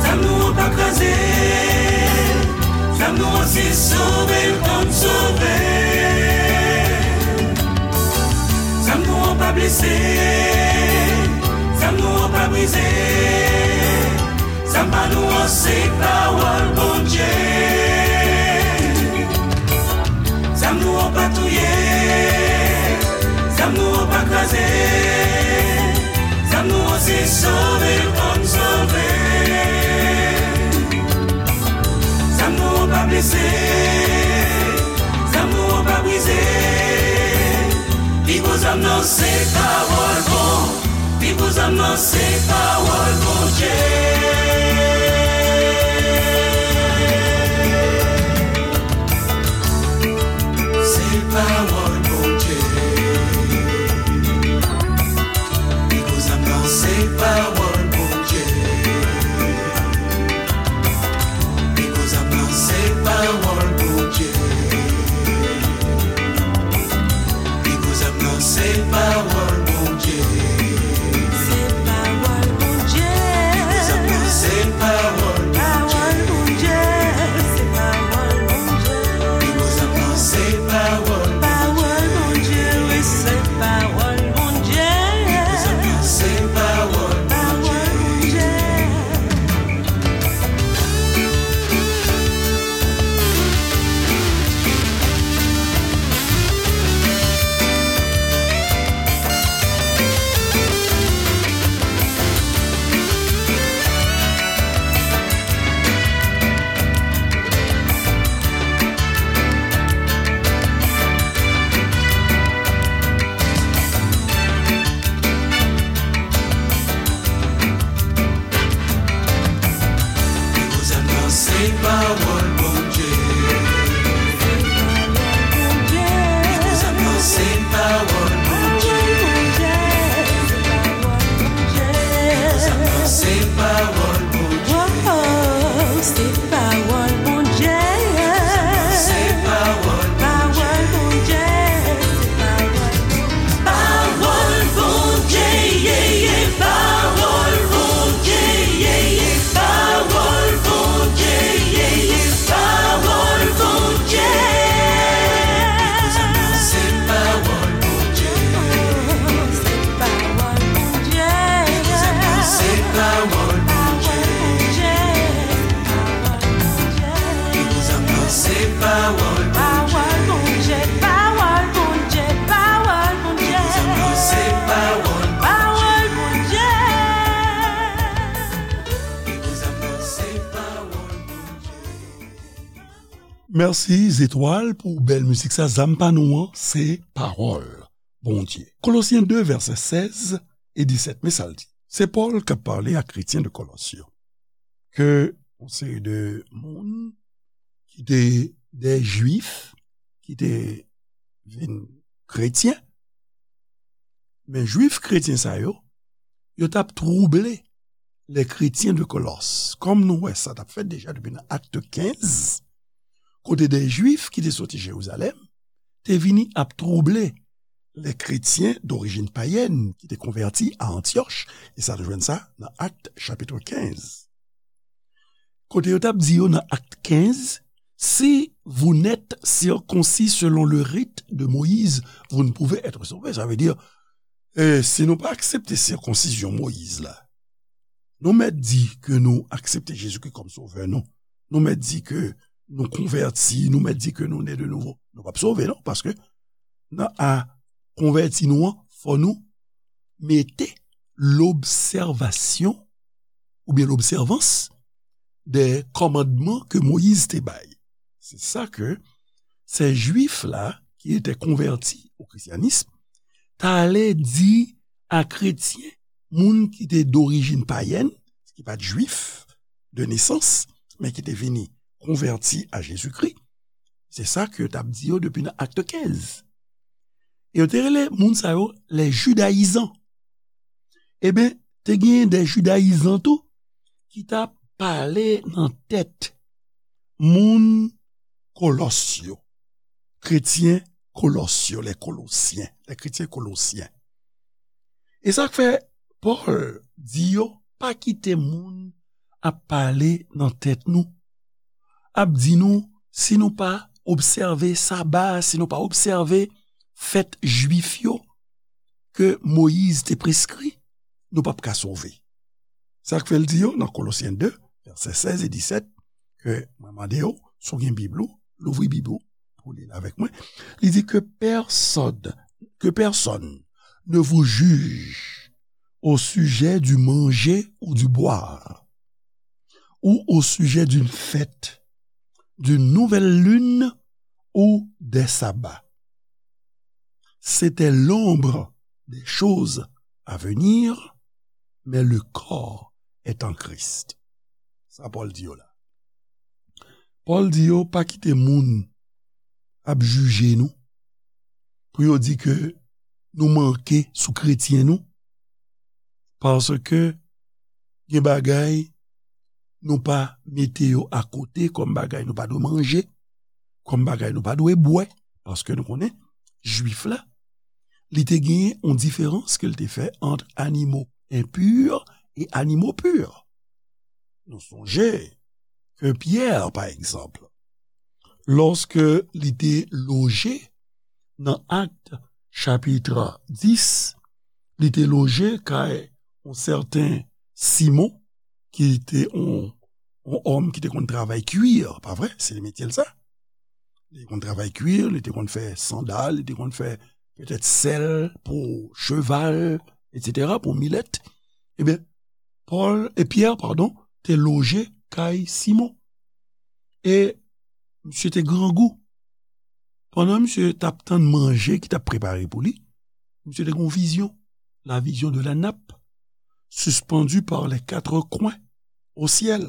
Zam nou an pa kraze, zam nou an se sove l konn sove. Zam nou an pa blese, zam nou an pa brize. Zam pa nou an se pawòl Bondye. Zam nou an pa touye, zam nou an pa kraze. Zam nou an se sove l konn sove. Zam nou an pa blese, zam nou an pa brize. Pi gwo zam nan se pawòl Bon Pi gwo zam nan se pawòl Bondye. Se pawòl Bondye. Pi gwo zam nan se pawòl Bondye. Pi gwo zam nan se pawòl Bondye. Pi gwo zam nan se pawòl Bondye. Se pawòl Bondye. Pi gwo zam nan se pawòl Bondye. Pawòl Bondye. Se pawòl Bondye. Pi gwo zam nan se pawòl Bondye. Pawòl Bondye, wi, se pawòl Bondye. Pi gwo zam nan se pawòl Bondye. Pawòl Bondye. Pi gwo zam nan se pawòl Bondye. Pi gwo zam nan se pawòl Bondye. Pi gwo zam nan se pawòl Bondye. Oh, se pawòl Bondye. Pi gwo zam nan se pawòl Bondye. Pawòl Bondye. Pawòl Bondye, ye, ye, pawòl Bondye, ye, ye, pawòl Bondye, ye, ye, pawòl Bondye. Pi gwo zam nan se pawòl Bondye. Se pawòl Bondye. Pi gwo zam nan se pawòl Bondye. Pi gwo zam nan se pawòl Bondye. Pawòl Bondye, pawòl Bondye, pawòl Bondye. Pi gwo zam nan se pawòl Bondye. Pawòl Bondye. Pi gwo zam nan se pawòl Bondye. Mèsi, Zetwal, pou bèl mizik sa. Zam pa nou an, se pawòl Bondye. Kolosyen de, vèsè sèz e disèt, men sa l di. Se Pòl k ap pale ak kretyen de Kolòs yo. Ke yon seri de moun ki te de Jwif, ki te vin kretyen, men Jwif kretyen sa yo, yo t ap twouble les chrétiens de Colosses. Kòm nou wè sa t ap fèt deja depi nan Akt kenz, kote de Jwif ki te soti Jerizalèm te vini ap twouble les chrétiens d'origine païenne ki te konvèti a Antyòch, e sa nou jwenn sa nan Akt chapit kenz. Kote yo t ap di yo nan Akt kenz, si vous n'êtes circoncis selon le rite de Moïse, vous ne pouvez être sauvés. Sa vle di, eh, si nou pa aksepte sikonsizyon Moyiz la, nou mèt di ke nou aksepte Jezikri kòm Sovè nou. Nou mèt di ke nou konvèti, nou mèt di ke nou ne de nouvo. Nou p ap sove, non, paske nan a konvèti nou an, fò nou mete lobsèvasyon oubyen lobsèvans de kòmandman ke Moyiz te bay. Se sa ke se Jwif la ki te konvèti o krisyanism t ale di a kretyen, moun ki te dorijin payèn, ki pa t Jwif de nesans, men ki te vini konvèti a Jezikri. Se sa ke yo t ap di yo depi nan Akt kenz. E yo te rele moun sa yo les judaïsants. Eben, te genyen de jidayizan tou ki t ap pale nan tèt moun Kolòs yo, kretyen Kolòs yo, les Colossiens, les chrétiens colossiens. E sa k fè Pòl di yo, pa kite moun ap pale nan tèt nou, ap di nou, si nou pa obsève saba, si nou pa obsève fèt jwif yo ke Moyiz te preskri, nou p ap ka sove. Sa k fè l di yo nan Kolosyen de, vèsè sèz e disèt, ke mwen mande yo, si w gen Bib ou, louvri Bib ou pou li l avèk mwen. Li di que personne, que personne ne vous juge au sujet du manger ou du boire, ou au sujet d'une fête, d'une nouvelle lune ou des sabbats. C'était l'ombre des choses à venir, mais le corps est en Christ. Sa Pòl di yo la. Pòl di yo pa kite moun ap jije nou pou yo di ke nou manke sou kretyen nou, paske gen bagay nou pa mete yo akote kòm bagay nou pa dwe manje, kòm bagay nou pa dwe bwè, paske nou konnen jwif la, li te genyen yon diferans ke l te fè ant animo enpi e animo pi. Nou sonje ke Pyè, pa egzanp, lòske li te loje nan Akt chapit dis, li te loje kay yon sèten Simon, ki te yon, yon òm ki te konn travay kwir, pa vre? Se metye l sa. Li te konn travay kwir, li te konn fè sandal, li te konn fè petèt sèl pou cheval, etsetera, pou milèt. Ebyen, Pòl, e Pyè, padon, te loje kay Simon. E misye te grangou. Pandan misye t ap tann manje ki t ap prepare pou li, misye te gen yon vizyon, la vision de la nappe suspendue par les quatre coins au ciel.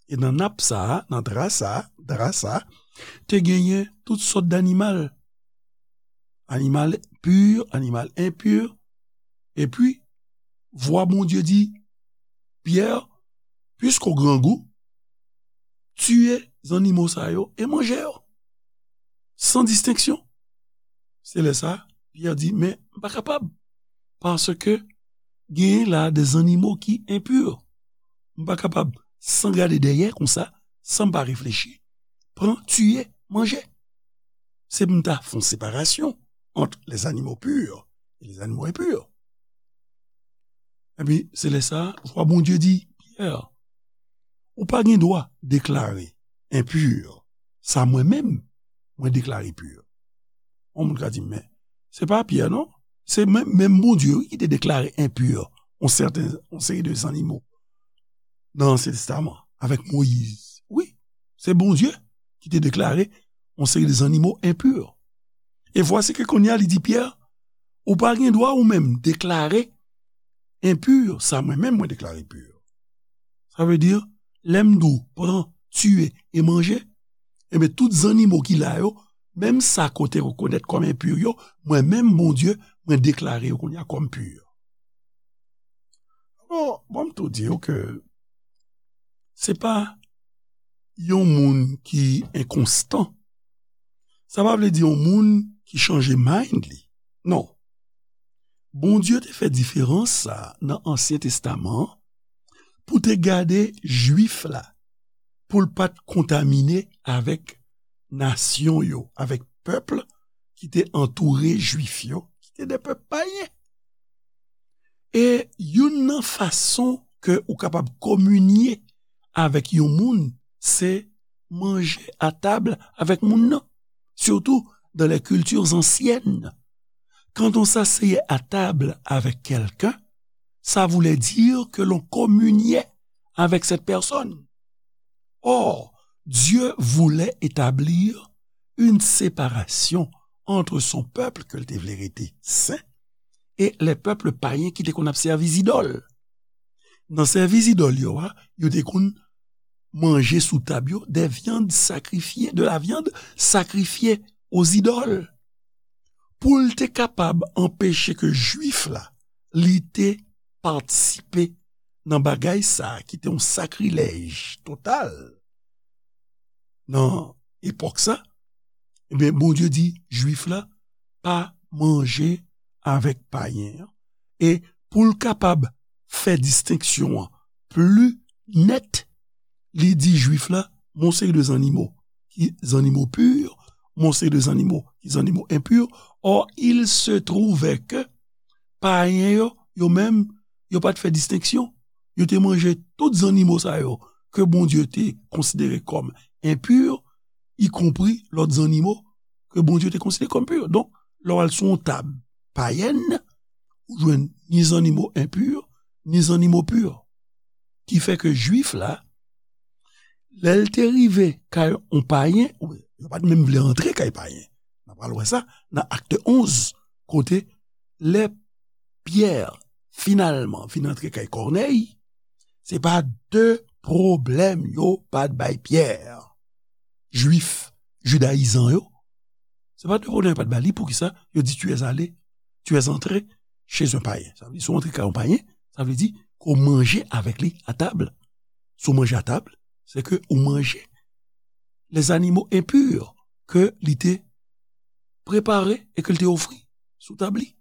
E nan nap sa a, nan dra sa a, dra sa a, te genyen tout sòt danimal. Animal pi, animal enpi. Epi, vwa Bondye di, Pyè, piske w grangou, tiye zannimo sa yo e manje yo. San distenksyon. Se lè sa a, Pyè di, men m pa kapab. Paske genyen la de zannimo ki enpi. M pa kapab, san gade dèyè konsa, san m pa reflechi, pran, tiye, manje. Se pou m ta fè yon separasyon ant les animaux purs et les animaux impurs. Epi, se lè sa a, vwa Bondye di, Pyè, ou pa gen dwa deklare enpi sa mwen menm, mwen deklare pi. Yon moun ka di, men, se pa Pyè, non? Se menm, menm Bondye, wi, ki te deklare enpi yon sèten, yon seri de zannimo nan Ansyen Testaman, avèk Moyiz. Wi, se Bondye ki te deklare yon seri de zannimo enpi. E vwasi ke kounye a, li di Pyè, ou pa gen dwa ou menm deklare enpi sa mwen menm mwen deklare pi. Sa vle di, lè m di w pran, tiye e manje, ebyen, tout zannimo ki la yo, menm sa ke w te rekonèt kòm enpi yo, mwen menm, Bondye, mwen deklare yo kounye a kòm pi. Alò, bon, m tou di w ke se pa yon moun ki enkonstan. Sa pa vle di yon moun ki chanje mind li. Non. Bondye te fè diferans sa a nan Ansyen Testaman an pou te gade Jwif la, pou l pa t kontamine avèk nasyon yo, avèk pèp ki te antoure Jwif yo, ki te de pèp payen. E youn nan fason ke ou kapab kominye avèk yon moun, se manje a tab avèk moun nan, surtout dans les cultures anciennes. Quand on s'asseyait à table avec quelqu'un, ça voulait dire que l'on communiait avec cette personne. Or, Dieu voulait établir une séparation entre son peuple ke l te vle rete sen e les peuples païens ki te konn ap sèvi zidòl. Nan sèvi zidòl yo a, yo te konn manje sou tab yo des viandes sacrifiées, de la viande sacrifiée aux idoles. Pou l te kapab anpeche ke Jwif la, li te patisipe nan bagay sa a ki te yon sakrilèj total nan epòk sa, ebyen, Bondye di Jwif la pa manje avèk payen an. E pou l kapab fè distenksyon an pli nèt, li di Jwif la, men yon seri de zannimo ki zannimo pur, men yon seri de zannimo ki zannimo enpur. Or, il se trouvait que payen yo, yo menm, yo pa t fè distenksyon. Yo te manje tout zannimo sa yo ke Bondye te konsidere kòm enpur, y compris lòt zannimo ke Bondye te konsidere kòm pur. Donk, lè w al sou yon tab payèn, ou jwenn ni zannimo enpur, ni zannimo pur. Ki fè ke Jwif la, lè l te rive kay yon payen, ou yo pa t menm vle antre kay payen. N a pral wè sa nan Akt onz, kote lè Pyè finalman vin antre kay Kònèy, se pa de pwoblèm yo pa t bay Pyè. Jwif, jidayizan yo, se pa de pwoblèm yo pa t bay li. Poukisa? Yo di, tu es allé, tu es entré chez un païen. Sa vle di, si w antre kay yon payen, sa vle di ke w manje avèk li a tab. Si w manje a tab, se ke ou manje les animaux impurs ke li te prepare e ke l te ofri sou tab li.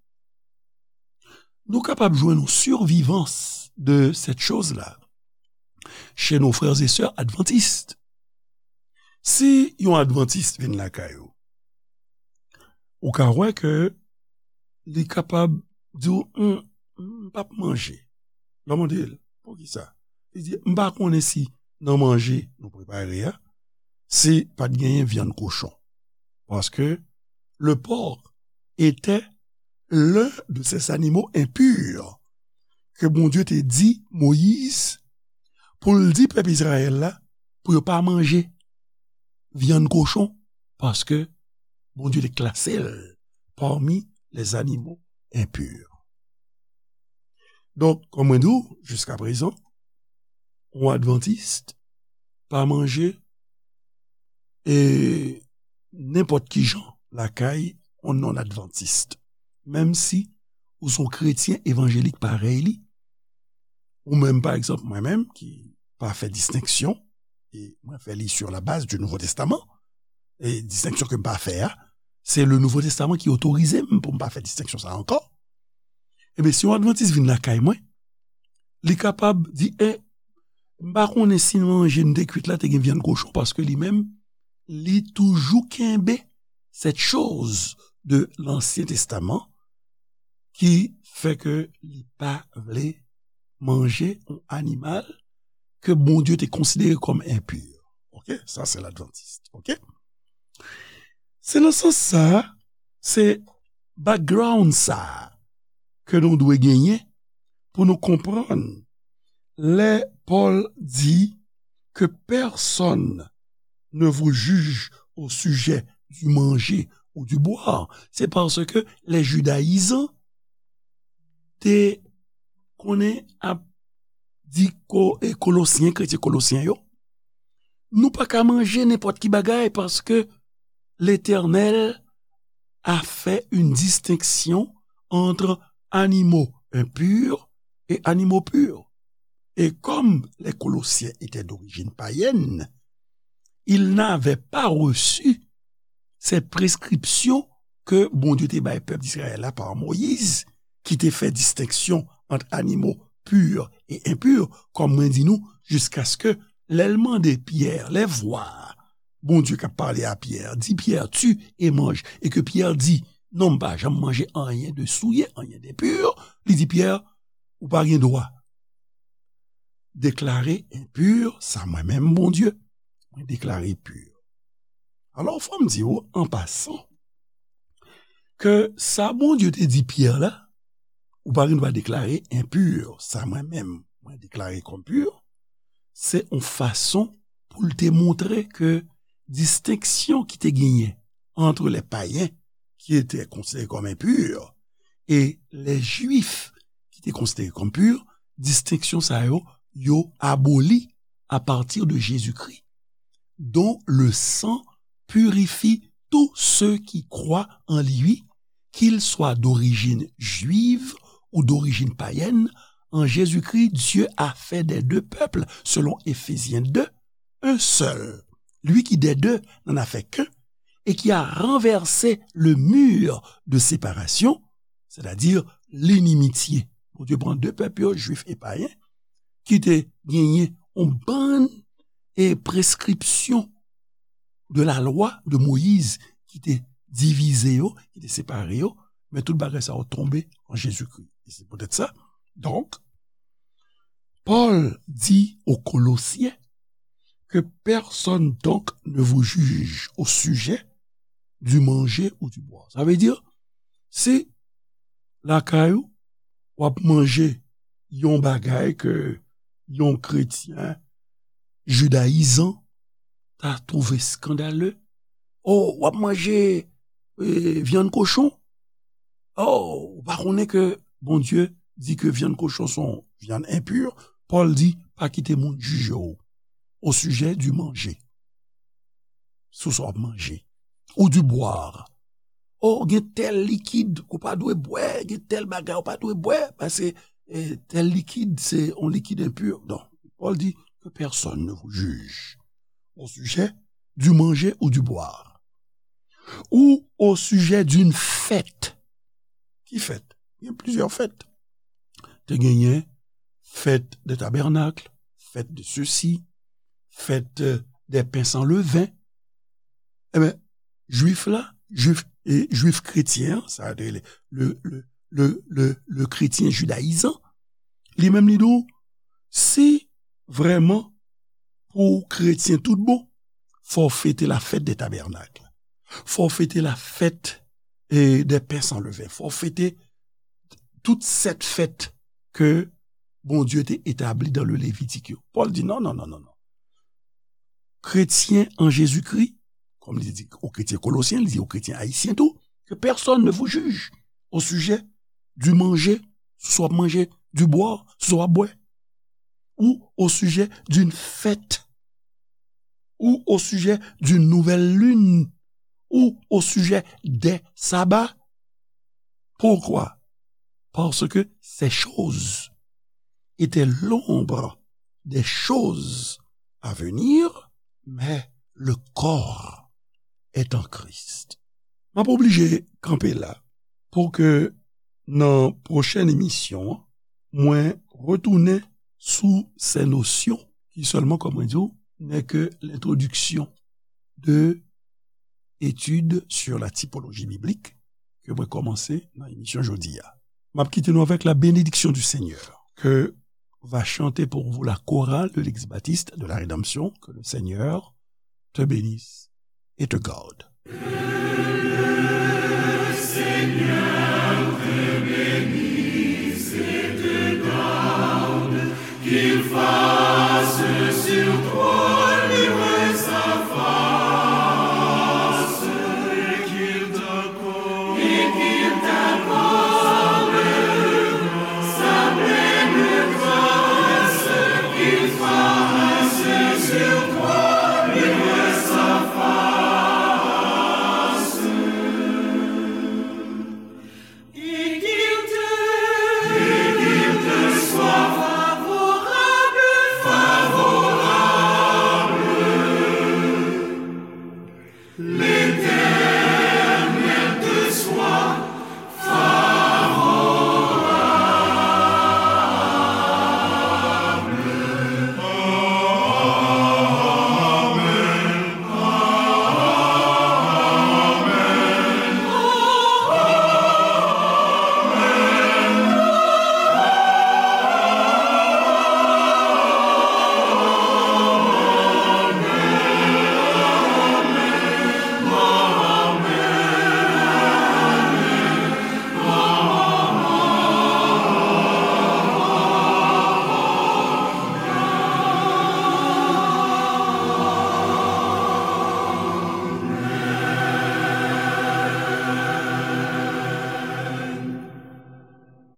Nou kapab jwenn yon survivance de cette chose-là chez nos frères et sœurs adventistes. Si yon advantis vin lakay ou, ou ka wè ke li kapab di w, "M, m p ap manje." Lè w mande l, "Poukisa?" Li di, "M pa konnen si nan manje nou prepare a, si pa t genyen vyann kochon." Paske le porc était l'un de ces animaux impurs ke Bondye te di Moyiz pou l di pèp Izrayèl la pou yo pa manje vyann kochon, paske Bondye te klase l parmi les animaux impurs. Donk, kòm mwen di w, jiska prezan, yon advantis pa manje e nenpòt ki jan lakay yon non-adventiste. Menm si ou se yon kretyen evanjelik parèy li, ou menm, pa egzanp, mwen menm, ki pa fè distenksyon, e mwen fè li sur la base du Nouveau Testament, e distenksyon ke m pa fè a, se le Nouveau Testament ki otorize m pou m pa fè distenksyon sa ankò. Ebyen, si yon advantis vin lakay mwen, li kapab di, "E, m pa konnen si manje m te kwit la te gen vyann kochon," paske li menm, li toujou kenbe cette chose de l'Ancien Testament ki fè ke li pa vle manje yon animal ke Bondye te konsidere kòm enpur. Oke? Sa se ladvantis. Oke? Se nan sans sa, se background sa ke nou dwe genyen pou nou konprann lè Pòl di que personne ne vous juge au sujet du manger ou du boire. Se paske lè jidayizan te konnen ap di ko, e Kolosyen, kretyen Kolosyen yo, nou pa ka manje nenpòt ki bagay paske Letènèl a fait une distinction entre animaux impurs et animaux purs. Et comme les Colossiens étaient d'origine païenne, ils n'avaient pas reçu cette prescription ke Bondye te bay pèp Izrayèl la pa Moyiz, ki te fè distenksyon ant animo pur e enpur, kòm mwen di nou, jiskaske lè l mande Pyè, lè vwa Bondye k ap pale a Pyè, di Pyè, "Tu et mange," e ke Pyè di, "Non, m pa janm manje anyen de souye, anyen de pur," li di Pyè, "Ou pa gen dwa deklare enpur sa mwen menm, Bondye, mwen deklare pur." Alò, fò m di w, an pasan, ke sa Bondye te di Pyè la, "Ou pa gen dwa deklare enpur sa mwen menm, mwen deklare kòm pur," se yon fason pou l te montre ke distenksyon ki te genyen entre les païens, qui étaient considérés comme impurs, et les Juifs, qui étaient considérés comme purs, distenksyon sa yo, yo aboli à partir de Jésus-Christ, dont le sang purifie tous ceux qui croient en lui, qu'ils soient d'origine juive ou d'origine païenne. En Jésus-Christ, Dieu a fait des deux peuples, selon Éphésiens deux, un seul, lui qui des deux n'en a fait qu'un, et qui a renversé le mur de séparation, c'est-à-dire l'inimitié Bondye pran de pèp yo, jwif e payen, ki te genyen yon bann e preskripsyon de la lwa de Moyiz ki te divize yo, ki te separe yo, men tout bagay sa yo tonbe an Jezikri. E se poutèt sa, donk, Pòl di aux Colossiens que personne donc ne vous juge au sujet du manger ou du boire. Sa vle di, si lakay ou, w ap manje yon bagay ke yon kretyen jidayizan ta twouve eskandale, oh, w ap manje eh, vyann kochon. Oh, ou pa konnen ke Bondye di ke vyann kochon se yon vyann enpi? Pòl di, pa kite moun jije w au sujet du manger. Sou sa w ap manje. Ou du boire. Oh, gen tèl likid ou pa dwe bwè, gen tèl bagay ou pa dwe bwè, paske eh, tèl likid se yon likid enpi. Non, Pòl di que personne ne vous juge au sujet du manger ou du boire, ou au sujet d'une fête. Ki fèt? Gen plizyè fèt. Te genyen fèt de tabènak, fèt de sesi, fèt euh, de pen san leven. Ebyen, jwif la, jwif, e, jwif kretyen an, sa te rele le, le, le, le, le kretyen jidayizan, li menm li di w, si vrèman pou w kretyen tout bon, fò w fete la fèt de tabènak. Fò w fete la fèt eh, de pen san leven. Fò w fete tout sèt fèt ke Bondye te etabli dan le Levitik yo. Pòl di non, non, non, non, non. Kretyen an Jezikri, kòm li di o kretyen kolosyen, li di o kretyen ayisyen tou, que personne ne vous juge au sujet du manger, sou sa w ap manje, du boire, sou sa w ap bwè, ou au sujet d'une fête, ou au sujet d'une nouvelle lune, ou au sujet des sabbats. Pourquoi? Parce que ces choses étaient l'ombre des choses à venir, mais le corps est en Christ. M ap oblije kanpe la pou ke nan pwochèn emisyon an, mwen retounen sou ces notions qui seulement, comme on dit, n'est que l'introduction de études sur la typologie biblique ke mwen kòmanse nan emisyon jodi a. M ap kite nou avec la bénédiction du Seigneur que va chanter pour vous la chorale de l'Église baptiste de la Rédemption. Que le Seigneur te bénisse et te garde.